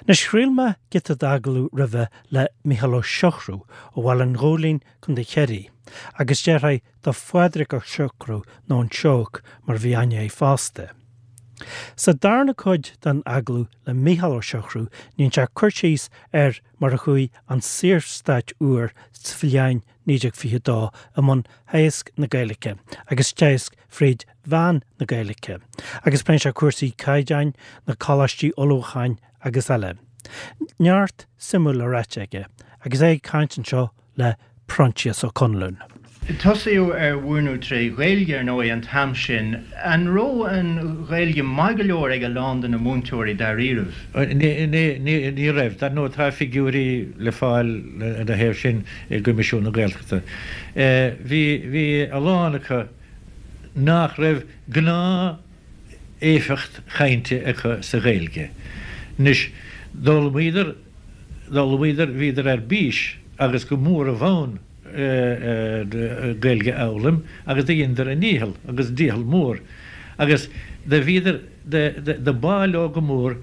Anois chraol mé giota d'agallamh roimhe le Mícheál Ó Siochrú ó Bhaile an Ghóilín, Co. Chiarraí, agus deartháir do Phádraig Ó Siochrú nó an Seabhac mar a bhí aithne air fosta. Sa darna cuid den agallamh le Mícheál Ó Siochrú déanann sé cur síos ar mar a chuaigh an Saorstát úr sa bhliain 1922 i mbun theagasc na Gaeilge agus teagasc fríd mheán na Gaeilge, agus pléann sé cúrsaí caighdeáin, na coláistí ullmhúcháin agus eile. Neart suimiúil le ráite aige agus é ag caint anseo le Proinsias Ó Conluain. Tosaíodh ar mhúineadh tré Ghaeilge, ar ndóigh, an t-am sin. An raibh an Ghaeilge maith go leor ag a lán de na múinteoirí dáiríribh? Ní raibh. Dar ndóigh tá figiúirí le fáil ina thaobh sin i gCoimisiún na Gaeltachta. Bhí, bhí a lán acu nach raibh gnáth éifeacht chainte acu sa Ghaeilge. Anois, d'fhoghlaimíodar, d'fhoghlaimíodar, bhíodar ar bís agus go mór i bhfonn Gaeilge a fhoghlaim agus do dheineadar a ndícheall agus dícheall mór agus do bhíodar, do b'áil leo go mór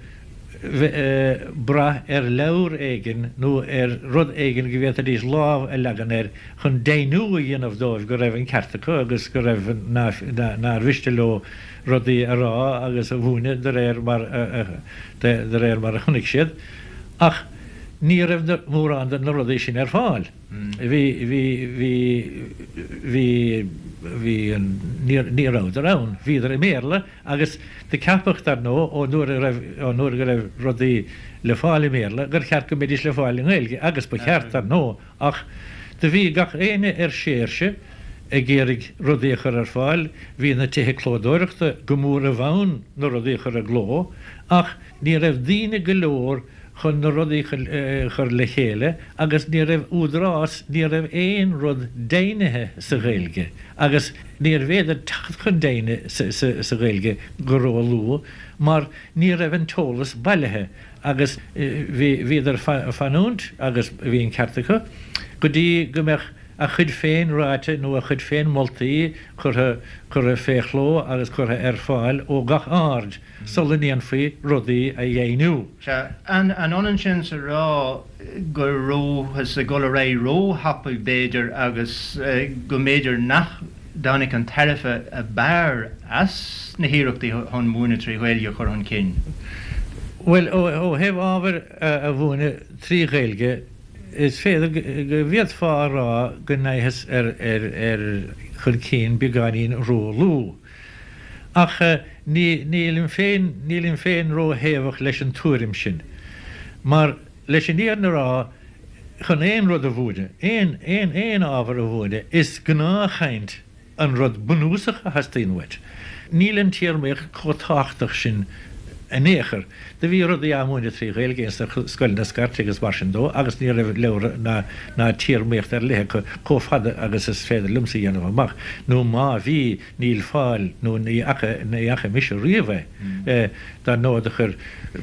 brath ar leabhar éigin nó ar rud éigin go bhféadfaidís lámh a leagan air chun deimhniú a dhéanamh dóibh go raibh an ceart acu agus go raibh, nár mhiste leo rudaí a rá agus a mhúineadh de réir mar de réir mar a chonaic siad. Ach ní raibh mórán de na rudaí sin ar fáil. Bhí, bhí, bhí, bhí, bhí an, ní rabhadar ann. Bhíodar i mBéarla agus do ceapadh, dar ndóigh, ón uair a raibh, ón uair go raibh rudaí le fáil i mBéarla, gur cheart go mbeidís le fáil i nGaeilge, agus ba cheart, dar ndóigh, ach do bhí gach éinne ar séirse ag iarraidh rudaí a chur ar fáil, bhí na tithe clódóireachta go mór i bhfonn na rudaí a chur i gcló, ach ní raibh daoine go leor chun na rudaí a chur le chéile agus ní raibh údarás, ní raibh aon rud deimhnithe sa Ghaeilge agus níorbh fhéidir teacht chun deimhne sa Ghaeilge go ró-luath mar ní raibh an t-eolas bailithe agus bhí, bhíodar fanúint agus bhí an ceart acu, go dtí go mbeadh a chuid féin ráite nó a chuid féin moltaí curtha, curtha fé chló agus curtha ar fáil ó gach aird sula ndéanfaí rudaí a dheimhniú. Sea. An ionann sin is a rá go rabhthas ag dul ar aghaidh ró-thapaidh, b'fhéidir, agus go mb'fhéidir nach dtáinig an tairbhe ab fhearr as na hiarrachtaí chun múineadh trí Ghaeilge a chur chun cinn? Bhuel, ó thaobh ábhair a mhúineadh trí Ghaeilge, is féidir go bhféadfá a rá go ndeachthas ar chun cinn beagáinín ró-luath. Ach nílim féin, nílim féin ró-thaobhach leis an tuairim sin. Mar, leis an fhírinne a rá, chun aon rud a mhúineadh, aon, aon, aon ábhar a mhúineadh, is gnáthchaint an rud bunúsach a theastaíonn uait. Níl an téarmaíocht chomh tábhachtach sin in aon chor. Do bhí rudaí á múineadh trí Ghaeilge ins na scoileanna scairte agus mar sin dó agus ní raibh leabhra ná, ná téarmaíocht ar leith acu chomh fada agus is féidir liomsa a dhéanamh amach, nó má bhí, níl fáil nó ní fhaca, ní fhaca mise riamh é. Dar ndóigh do chuir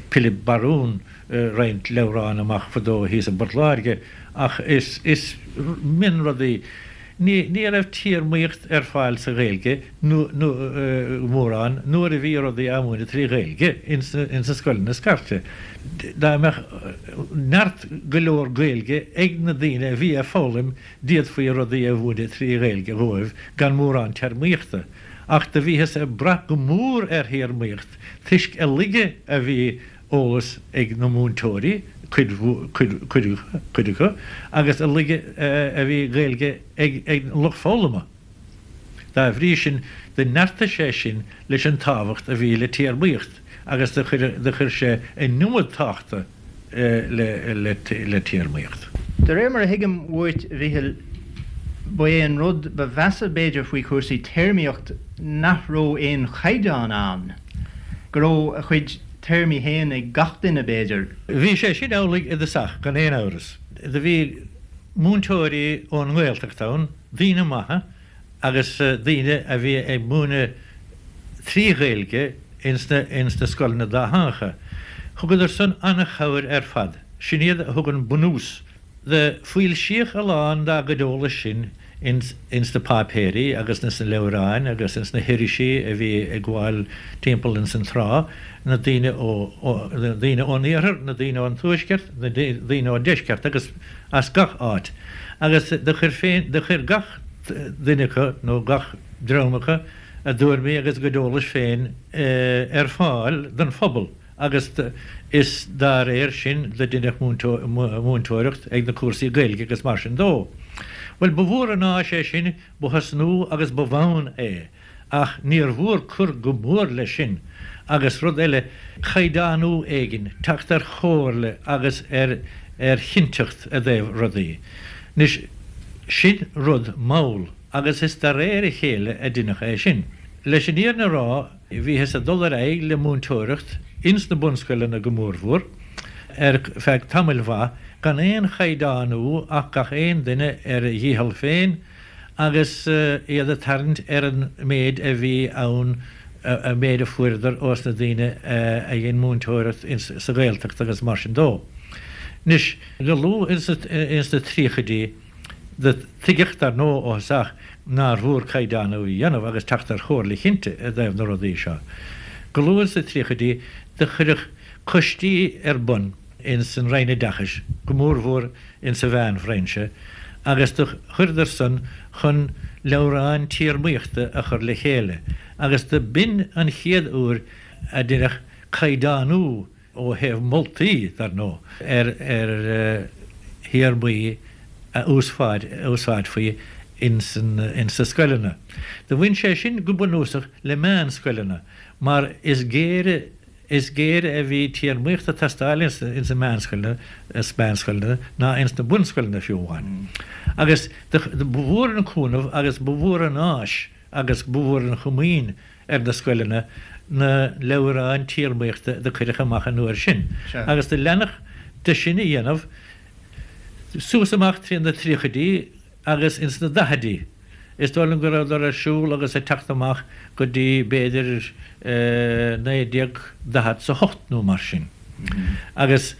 Pilib Barún roinnt leabhrán amach fadó thíos i bPort Láirge ach is, is mionrudaí. Ní, ní raibh téarmaíocht ar fáil sa Ghaeilge nó, nó mórán nuair a bhí rudaí á múineadh trí Ghaeilge ins na, ins na scoileanna scairte. Dá mbeadh neart go leor Gaeilge ag na daoine a bhí ag foghlaim d'fhéadfaí rudaí a mhúineadh trí Ghaeilge dhóibh gan mórán téarmaíochta. Ach do bhíothas ag brath go mór ar théarmaíocht toisc a laige a bhí eolas ag na múinteoirí, cuid, cuid, cuid, cuid acu, agus a laige a bhí Gaeilge ag an lucht foghlama. Dá bhrí sin, do neartaigh sé sin leis an tábhacht a bhí le téarmaíocht agus do chuir, do chuir sé an iomad tábhachta le, le, le téarmaíocht. De réir mar a thuigim uait, a Mhíchíl, ba é an rud ba mheasa b'fhéidir faoi chúrsaí téarmaíocht nach raibh aon chaighdeán ann, go raibh a chuid téarmaí féin ag gach duine, b'fhéidir. Bhí sé sin amhlaidh i dtosach, gan aon amhras. Do bhí múinteoirí ón nGaeltacht ann, daoine maithe agus daoine a bhí ag múineadh trí Ghaeilge ins na, ins na scoileanna dátheangacha. Thugadar san an-chabhair ar fad. Sin iad a thug an bunús. Do foilsíodh a lán dá gcuid eolais sin. ins ins na páipéirí agus ins na leabhráin agus ins na hirisí a bhí ag gabháil timpeall ins an tráth, na daoine ó, na daoine ón iarthar, na daoine ón tuaisceart, na daoine ón deisceart agus as gach áit. Agus do chuir féin, do chuir gach duine acu nó gach dream acu a dtuairimí agus a gcuid eolais féin ar fáil don phobal. agus is dá réir sin do deineadh múinteoireacht ag na cúrsaí Gaeilge agus mar sin dó. Bhuel, ba mhór an áis é sin, ba thosnú agus ba bhonn é, ach níor mhór cur go mór leis sin, agus rud eile, caighdeánú éigin, teacht ar chomhairle agus ar ar chinnteacht i dtaobh rudaí. Anois, sin rud mall, agus is de réir a chéile a deineadh é sin. Leis an fhírinne a rá, Bhíothas ag dul ar aghaidh le múinteoireacht ins na bunscoileanna go mórmhór ar feadh tamaill mhaith gan aon chaighdeánú ach gach aon duine ar a dhícheall féin agus iad ag tarraingt ar an méid a bhí ann, an méid a fuaireadar ós na daoine a dhein múinteoireacht sa Ghaeltacht agus mar sin dó. Anois, go luath ins na tríochaidí, Do tuigeadh, dar ndóigh, ó thosach nár mhór caighdeánú a dhéanamh agus teacht ar chomhairle chinnte i dtaobh na rudaí seo. Go luath sna tríochaidí do cuireadh coistí ar bun ins an Roinn Oideachais, go mórmhór ins an mheánbhrainse, agus do chuireadar san chun leabhráin téarmaíochta a chur le chéile agus do b'in an chéad uair a deineadh caighdeánú ó thaobh moltaí, dar ndóigh, ar théarmaí a úsáidfí ins na scoileanna. Do bhain sé sin go bunúsach le meánscoileanna mar is géire is géire a bhí téarmaíocht ag teastáil ins na meánscoileanna ná ins na bunscoileanna fiú amháin. Agus ba mhór an cúnamh agus ba mhór an áis agus ba mhór an chomaoin ar na scoileanna na leabhráin téarmaíochta do cuireadh amach an uair sin agus do leanadh de sin a dhéanamh suas amach trí na tríochaidí agus ins na daichidí. Is dóigh liom go rabhadar ar siúl agus ag teacht amach go dtí b'fhéidir 1948 nó mar sin. Agus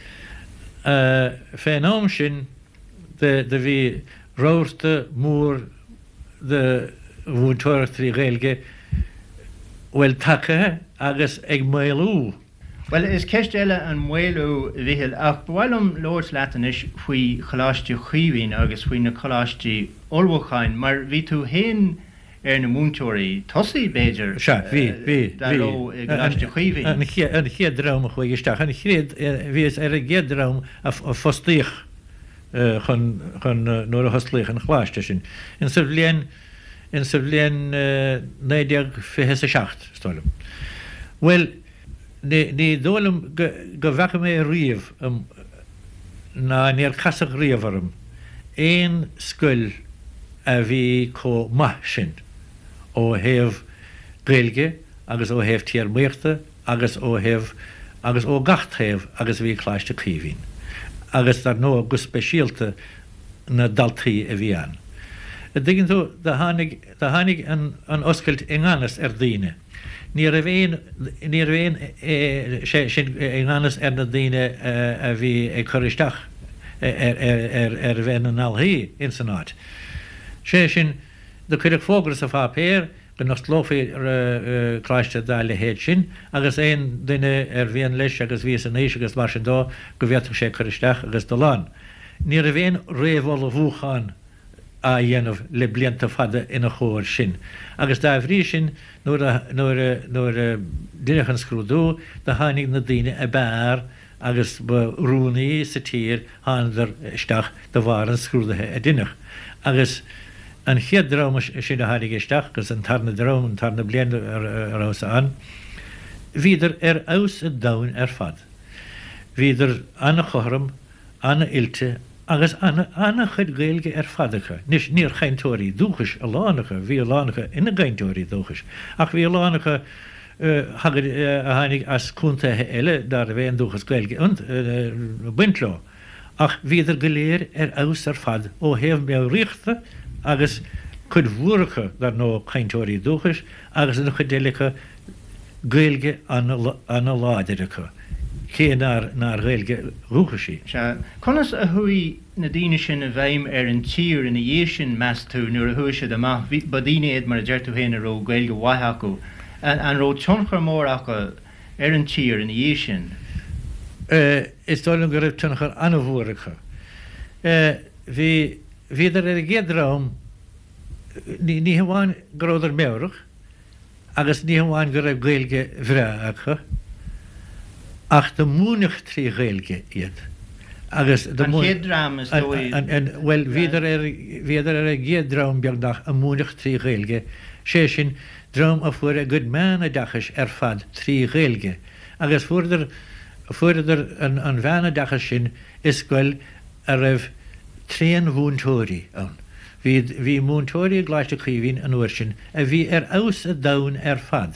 fén am sin do bhí rabharta mór de mhúinteoireacht trí Ghaeilge, bhuel, tagtha agus ag maolú. Bhuel, is ceist eile an maolú, a Mhichíl, ach ba mhaith liom labhairt leat anois faoi Choláiste Chaoimhín agus faoi na coláistí ullmhúcháin, mar bhí tú féin ar na múinteoirí tosaigh, b'fhéidir, Sea, bhí, bhí, dá bhí. raibh i gColáiste Chaoimhín. An chéad dream a chuaigh isteach, an chéad, bhíos ar an gcéad dream a fostaíodh. chun, chun, nuair a hosclaíodh an choláiste sin, in sa bhliain, in sa bhliain 1927, is dóigh liom. Bhuel, ní, ní dóigh liom go, go bhfaca mé riamh, ná níor casadh riamh orm, aon scoil a bhí chomh maith sin ó thaobh Gaeilge agus ó thaobh téarmaíochta agus ó thaobh agus ó gach taobh agus a bhí Coláiste Caoimhín agus dar ndóigh go speisialta na daltaí a bhí ann. A dtuigeann tú, do tháinig, do tháinig an, an oscailt i ngan fhios ar daoine. Ní raibh aon, ní raibh aon, sé sin i ngan fhios ar na daoine a bhí ag cur isteach ar, ar, ar, ar bheith ina ndaltaí ins an áit. Sé sin, do cuireadh fógra sa pháipéar, go n-osclófaí coláiste dá leithéid sin agus aon duine ar mhian leis agus bhí san aois agus mar sin dó go bhféadfadh sé cur isteach agus dul ann. Ní raibh aon réamhullmhúchán á dhéanamh le blianta fada ina chomhair sin agus dá bhrí sin nuair a nuair a nuair a deineadh an scrúdú do tháinig na daoine ab fhearr agus ba oiriúnaí sa tír, thánadar isteach de bharr an scrúdaithe a deineadh. Agus an chéad dream sin a tháinig isteach, agus an tarna dream, an tarna bliain a rabhas ann, bhíodar ar fheabhas an domhain ar fad. Bhíodar an-chothrom, an-oilte agus an-chuid Gaeilge ar fad acu. Anois, níor chainteoirí dúchais a lán acu, bhí a lán acu ina gcainteoirí dúchais, ach bhí a lán acu, a tháinig as contaetha eile ná raibh aon dúchas Gaeilge ag baint leo, ach bhíodar go léir ar fheabhas ar fad ó thaobh meabhraíochta agus cuid mhór acu, dar ndóigh, cainteoirí dúchais agus an chuid eile acu Gaeilge ana-láidir acu. cé nár nár Ghaeilge dhúchais í. Sea. Conas a chuaigh na daoine sin i bhfeidhm ar an tír ina dhiaidh sin, meas tú, nuair a chuaigh siad amach? Bhí, ba daoine iad, mar a deir tú féin, a raibh Gaeilge mhaith acu. An raibh tionchar mór acu ar an tír ina dhiaidh sin? Is dóigh liom go raibh tionchar an-mhór acu. Bhí, bhíodar ar an gcéad dream, ní, ní hamháin go rabhadar meabhrach, Agus ní hamháin go raibh Gaeilge bhreá acu, ach do múineadh 3 Ghaeilge iad. Agus do An chéad dream, is dóigh. Bhuel, bhíodar ar, bhíodar ar an gcéad dream, beagnach, a múineadh 3 Ghaeilge, sé sin, dream a fuair a gcuid meánoideachais ar fad 3 Ghaeilge. Agus fuaireadar, fuaireadar an mheánoideachas sin i scoil a raibh tréanmhúinteoirí ann. Bhí, bhí múinteoirí i gColáiste Chaoimhín an uair sin a bhí ar fheabhas an domhain ar fad.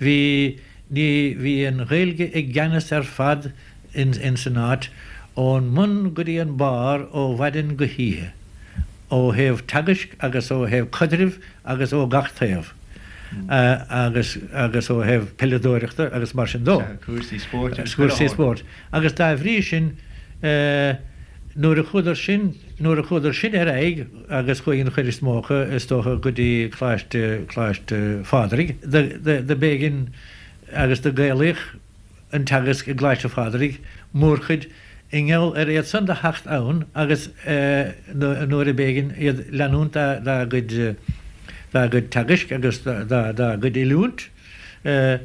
Bhí, ní, bhí an Ghaeilge i gceannas ar fad in, ins an áit, ón mbun go dtí an barr ó mhaidin go hoíche, ó thaobh teagaisc agus ó thaobh caidrimh agus ó gach taobh, agus, agus ó thaobh peileadóireachta agus mar sin dó. Cúrsaí spóirt agus chuile Cúrsaí spóirt. Agus dá bhrí sin, nuair a chuadar sin, nuair a chuadar sin ar aghaidh, agus chuaigh an chuid is mó acu, is dócha, go dtí Coláiste, Coláiste Phádraig, do, do, do b'éigean agus do gaelaíodh an teagasc i gColáiste Phádraig, mórchuid, i ngeall ar iad san do theacht ann agus nuair a b'éigean iad leanúint dá, dá gcuid, dá gcuid teagaisc agus dá, dá gcuid oiliúint 3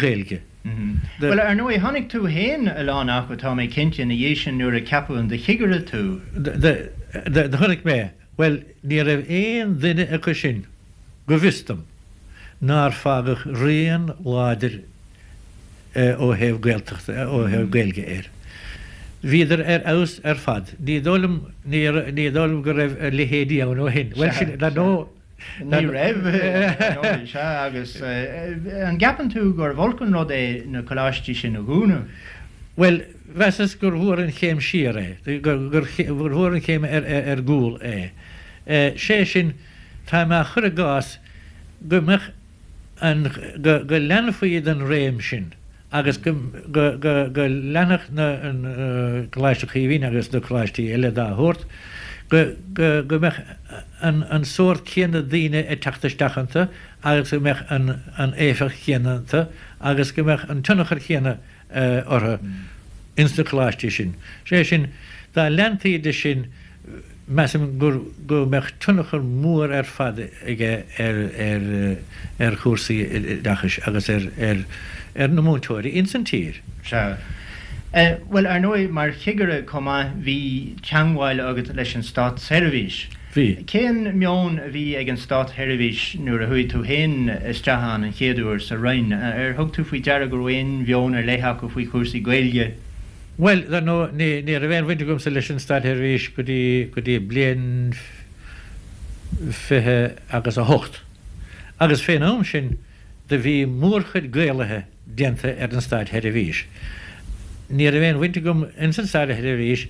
Ghaeilge. Bhuel, ar ndóigh, chonaic tú féin a lán acu, tá mé cinnte, ina dhiaidh sin nuair a ceapadh in do chigire tú. Do chonaic mé. Bhuel, ní raibh aon duine acu sin, go bhfios dom, nár fágadh rian láidir ó thaobh Gaeltachta, ó thaobh Gaeilge air. Bhíodar ar fheabhas ar fad. Ní dóigh liom, ní dóigh liom go raibh a leithéidí ann ó shin. Bhuel, sin, dar ndóigh, Ní raibh, sea, agus an gceapann tú gurbh olc an rud é na coláistí sin a dhúnadh? Bhuel, mheasas gur mhór an chéim siar é, gur mhór an chéim ar gcúl é. Sé sin, tá mé á chur i gcás go mbeadh an, go leanfaí den réim sin. agus go leanfadh na Coláiste Chaoimhín agus na coláistí eile dá shórt, go mbeadh an sórt céanna daoine ag teacht isteach iontu agus go mbeadh an éifeacht chéanna iontu agus go mbeadh an tionchar céanna orthu ins na coláistí sin. Sé sin, dá leantaí de sin, Measaim gur go mbeadh tionchar mór ar fad aige ar ar ar chúrsaí oideachais agus ar ar ar na múinteoirí ins an tír. Sea. Bhuel, ar ndóigh, mar chigire chomh maith, bhí teangmháil agat leis an státseirbhís. Bhí. Cén meon a bhí ag an státseirbhís nuair a chuaigh tú féin isteach ann an chéad uair sa Roinn? Ar thug tú faoi deara go raibh aon mheon ar leith acu faoi chúrsaí Gaeilge? Bhuel, dar ndóigh, ní, ní raibh aon bhaint agamsa leis an Státsheirbhís go dtí, go dtí bliain 20 agus 8. Agus fén am sin do bhí mórchuid Gaelaithe déanta ar an Státsheirbhís. Ní raibh aon bhaint agam ins an Státsheirbhís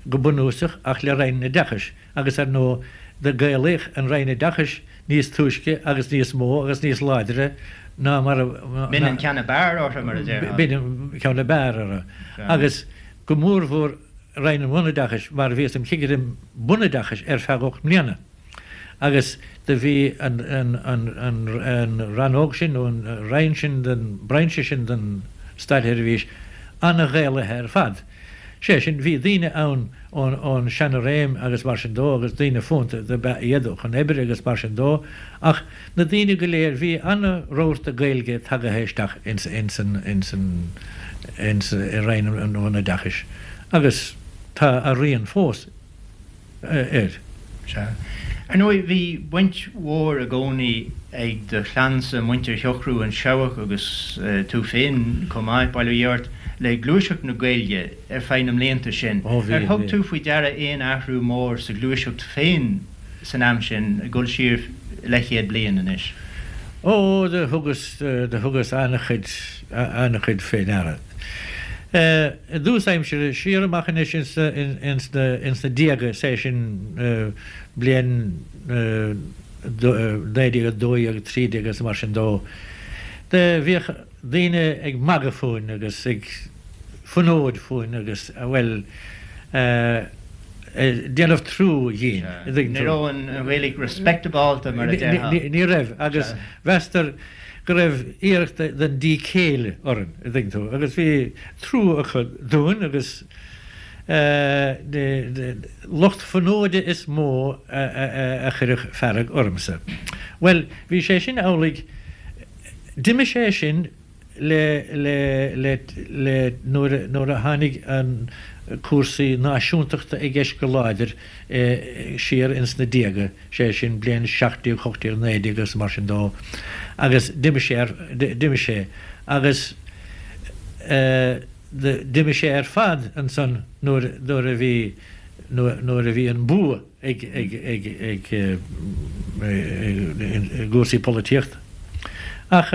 go bunúsach ach le Roinn an Oideachais agus ar ndóigh do Gaelaíodh an Roinn Oideachais níos túisce agus níos mó agus níos láidre ná mar a. B'in an ceann ab fhearr orthu, mar a déarfá. B'in an ceann ab fhearr orthu. Agus go mórmhór Roinn an Bhunoideachais mar bhíos im chigire bunoideachais ar feadh 8 mbliana agus do bhí an rannóg sin nó an roinn sin den, brainse sin den Státsheirbhís an-Ghaelaithe ar fad. Sé sin, bhí daoine ann ón seana-réim agus mar sin dó agus daoine fónta do b'ea iad chun oibre agus mar sin dó ach na daoine go léir, bhí ana-rabharta Gaeilge tagaithe isteach ins an, ins an, ins, i Roinn an Bhunoideachais agus tá a rian fós. air. Sea. Ar ndóigh, bhí baint mhór i gcónaí ag do chlannsa, muintir Shiochrú, an Seabhac agus tú féin chomh maith, bail ó Dhia ort, le gluaiseacht na Gaeilge ar feadh na mblianta sin. Ó bhí, Ar thug bhí. tú faoi deara aon athrú mór sa ghluaiseacht féin san am sin, ag dul siar leathchéad bliain anois? Ó, do thugas, do thugas an-chuid, an-chuid fé ndeara. I dtús aimsire, siar amach anois ins na déaga, is é sin bliain 1912, 13 agus mar sin dó, Do bhíodh daoine ag magadh fúinn agus ag fonóid fúinn agus, bhuel, ag déanamh trua dhínn, an dtuigeann tú. Ní raibh an Ghaeilge respectabálta mar a déarfá. Ní raibh, agus mheastar go raibh iarracht den díth céille orainn, an dtuigeann tú, agus bhí trua acu dúinn agus lucht fonóide is mó a chuireadh fearg ormsa. Bhuel, bhí sé sin amhlaidh, d'imigh sé sin le, le, le, le, nuair a, nuair a tháinig an cúrsaí náisiúntachta i gceist go láidir siar ins na déaga, sé sin bliain 17, 18, 19 agus mar sin dó, agus d'imigh sé ar, d'imigh sé agus eh, D'imigh sé ar fad ansan nuair nuair a bhí nuair a bhí an bua ag ag ag ag i gcúrsaí polaitíochta. Ach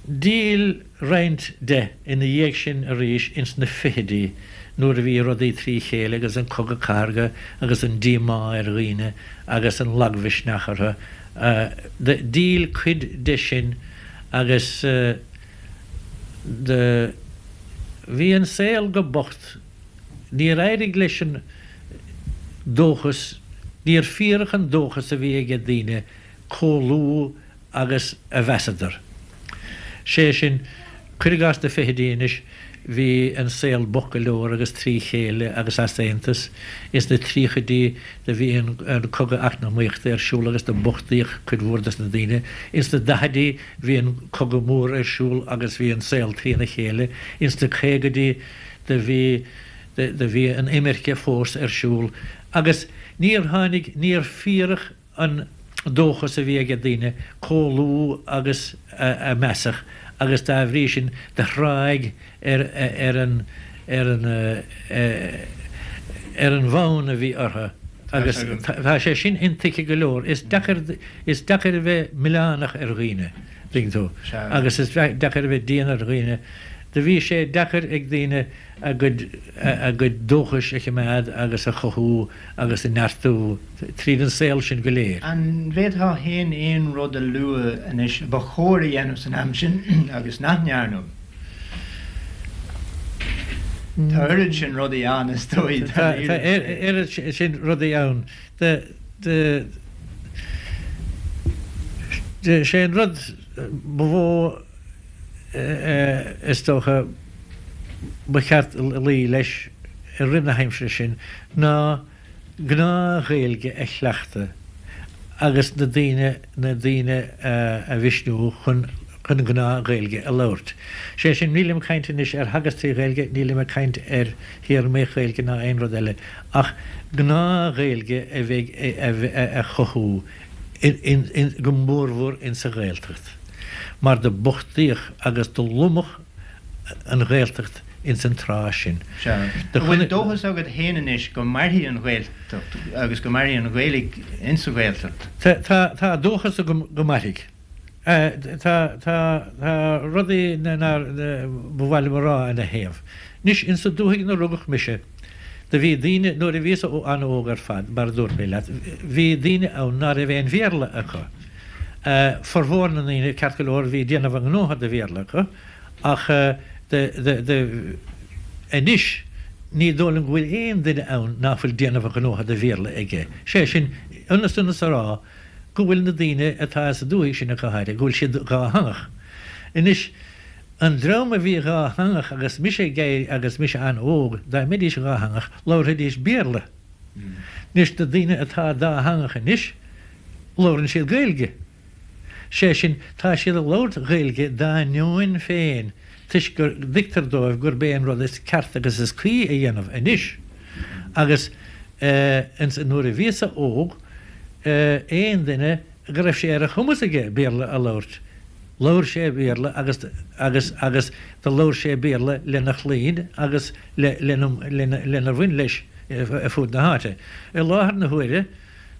d'fhill roinnt de ina dhiaidh sin arís ins na fichidí nuair a bhí rudaí trí chéile agus an Cogadh Cathartha agus an díomá ar dhaoine agus an lagmhisneach orthu. D'fhill cuid de sin agus. Do bhí an saol go bocht. Níor éirigh leis an dóchas, níor fíoradh an dóchas a bhí aige daoine comh luath agus a mheasadar. Sé sin, cuir i gcás na fichidí anois, bhí an saol bocht go leor agus trí chéile agus easaontas. Ins na tríochaidí do bhí an cogadh eacnamaíochta ar siúl agus do bochtaíodh cuid mhór dos na daoine. Ins na daichidí Bhí an Cogadh Mór ar siúl agus bhí an saol trína chéile. Ins na caogaidí do bhí do bhí an imirce fós ar siúl agus níor tháinig, níor fíoradh an dóchas a bhí aige daoine comh luath agus a measadh agus dá bhrí sin do thráigh ar ar an ar an ar an bhfonn a bhí orthu agus tá sé sin intuigthe go leor. Is deacair is deacair a bheith milleánach ar dhaoine, tuigeann tú, agus is deacair a bheith dian ar dhaoine. Do bhí sé deacair ag daoine a gcuid a gcuid dóchais a choimeád agus a chothú agus a neartú tríd an saol sin go léir. An bhféadfá féin aon rud a lua anois a ba chóir a dhéanamh san am sin agus nach ndearnadh? Tá oiread sin rudaí ann, is dóigh. Tá oiread sin rudaí ann. Sé an rud ba mhó is dócha ba cheart luí leis i rith na haimsire sin ná gnáth-Ghaeilge a chleachtadh agus na daoine na daoine a mhisniú chun chun gnáth-Ghaeilge a labhairt. Sé sin, nílim ag caint anois ar theagasc trí Ghaeilge, nílim ag caint ar théarmaíocht Ghaeilge ná aon rud eile, ach gnáth-Ghaeilge a bheidh a chothú in in go mórmhór insa Ghaeltacht, mar do bochtaíodh agus do lomadh an Ghaeltacht ins an tráth sin. Sea. An bhfuil dóchas agat féin anois go mairfidh an Ghaeltacht agus go mairfidh an Ghaeilge insa Ghaeltacht? Tá, tá, tá dóchas agam go mairfidh. Tá, tá, tá rudaí nár, ba mhaith liom a rá ina thaobh. Anois, insa dúthaigh ina rugadh mise, do bhí daoine, nuair a bhíos an-óg ar fad, mar a dúirt mé leat, bhí daoine ann ná raibh aon Bhéarla acu. Formhór na ndaoine, ceart go leor, bhí déanamh a ngnótha de Bhéarla acu, Ach anois ní dóigh liom go bhfuil aon duine ann ná fuil déanamh a ghnótha de Bhéarla aige. Sé sin, ionas ionas a rá go bhfuil na daoine atá sa dúthaigh sin ach go háirithe, go bhfuil siad dhátheangach. Anois, an dream a bhí dhátheangach agus mise ag éirí agus mise an-óg, dá mbeidís dhátheangach, labharfaidís Béarla. Anois, na daoine atá dátheangach anois, labhrann siad Gaeilge. Sé sin, tá siad ag labhairt Ghaeilge dá ndeoin féin toisc go dtuigtear dóibh gurb é an rud is ceart agus is cuí a dhéanamh anois. Agus nuair a bhíos-sa óg, aon duine go raibh sé ar a chumas aige Béarla a labhairt, labhair sé Béarla agus agus agus do labhair sé Béarla lena chlainn agus le lena lenar bhain leis ar fud na háite. I láthair na huaire,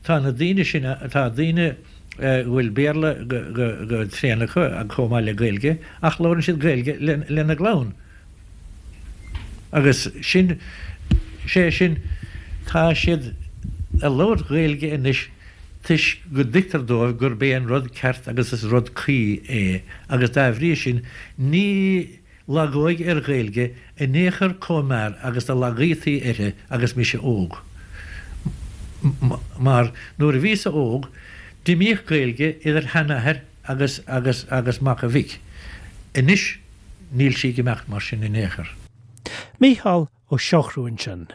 Tá na daoine sin, tá daoine go bhfuil Béarla go tréan acu chomh maith le Gaeilge ach labhrann siad Gaeilge lena gclann. Agus sin, sé sin, tá siad ag labhairt Gaeilge anois. toisc go dtuigtear dóibh gurb é an rud ceart agus is rud cuí é agus dá bhrí sin ní lagóidh ar Ghaeilge in aon chor comh mear agus do lagaítaí uirthi agus mise óg. Mar nuair a bhíos-sa óg d'imíodh Gaeilge idir sheanathair agus agus agus mac a mhic. Anois níl sí ag imeacht mar sin in aon chor. Mícheál Ó Siochrú ansin.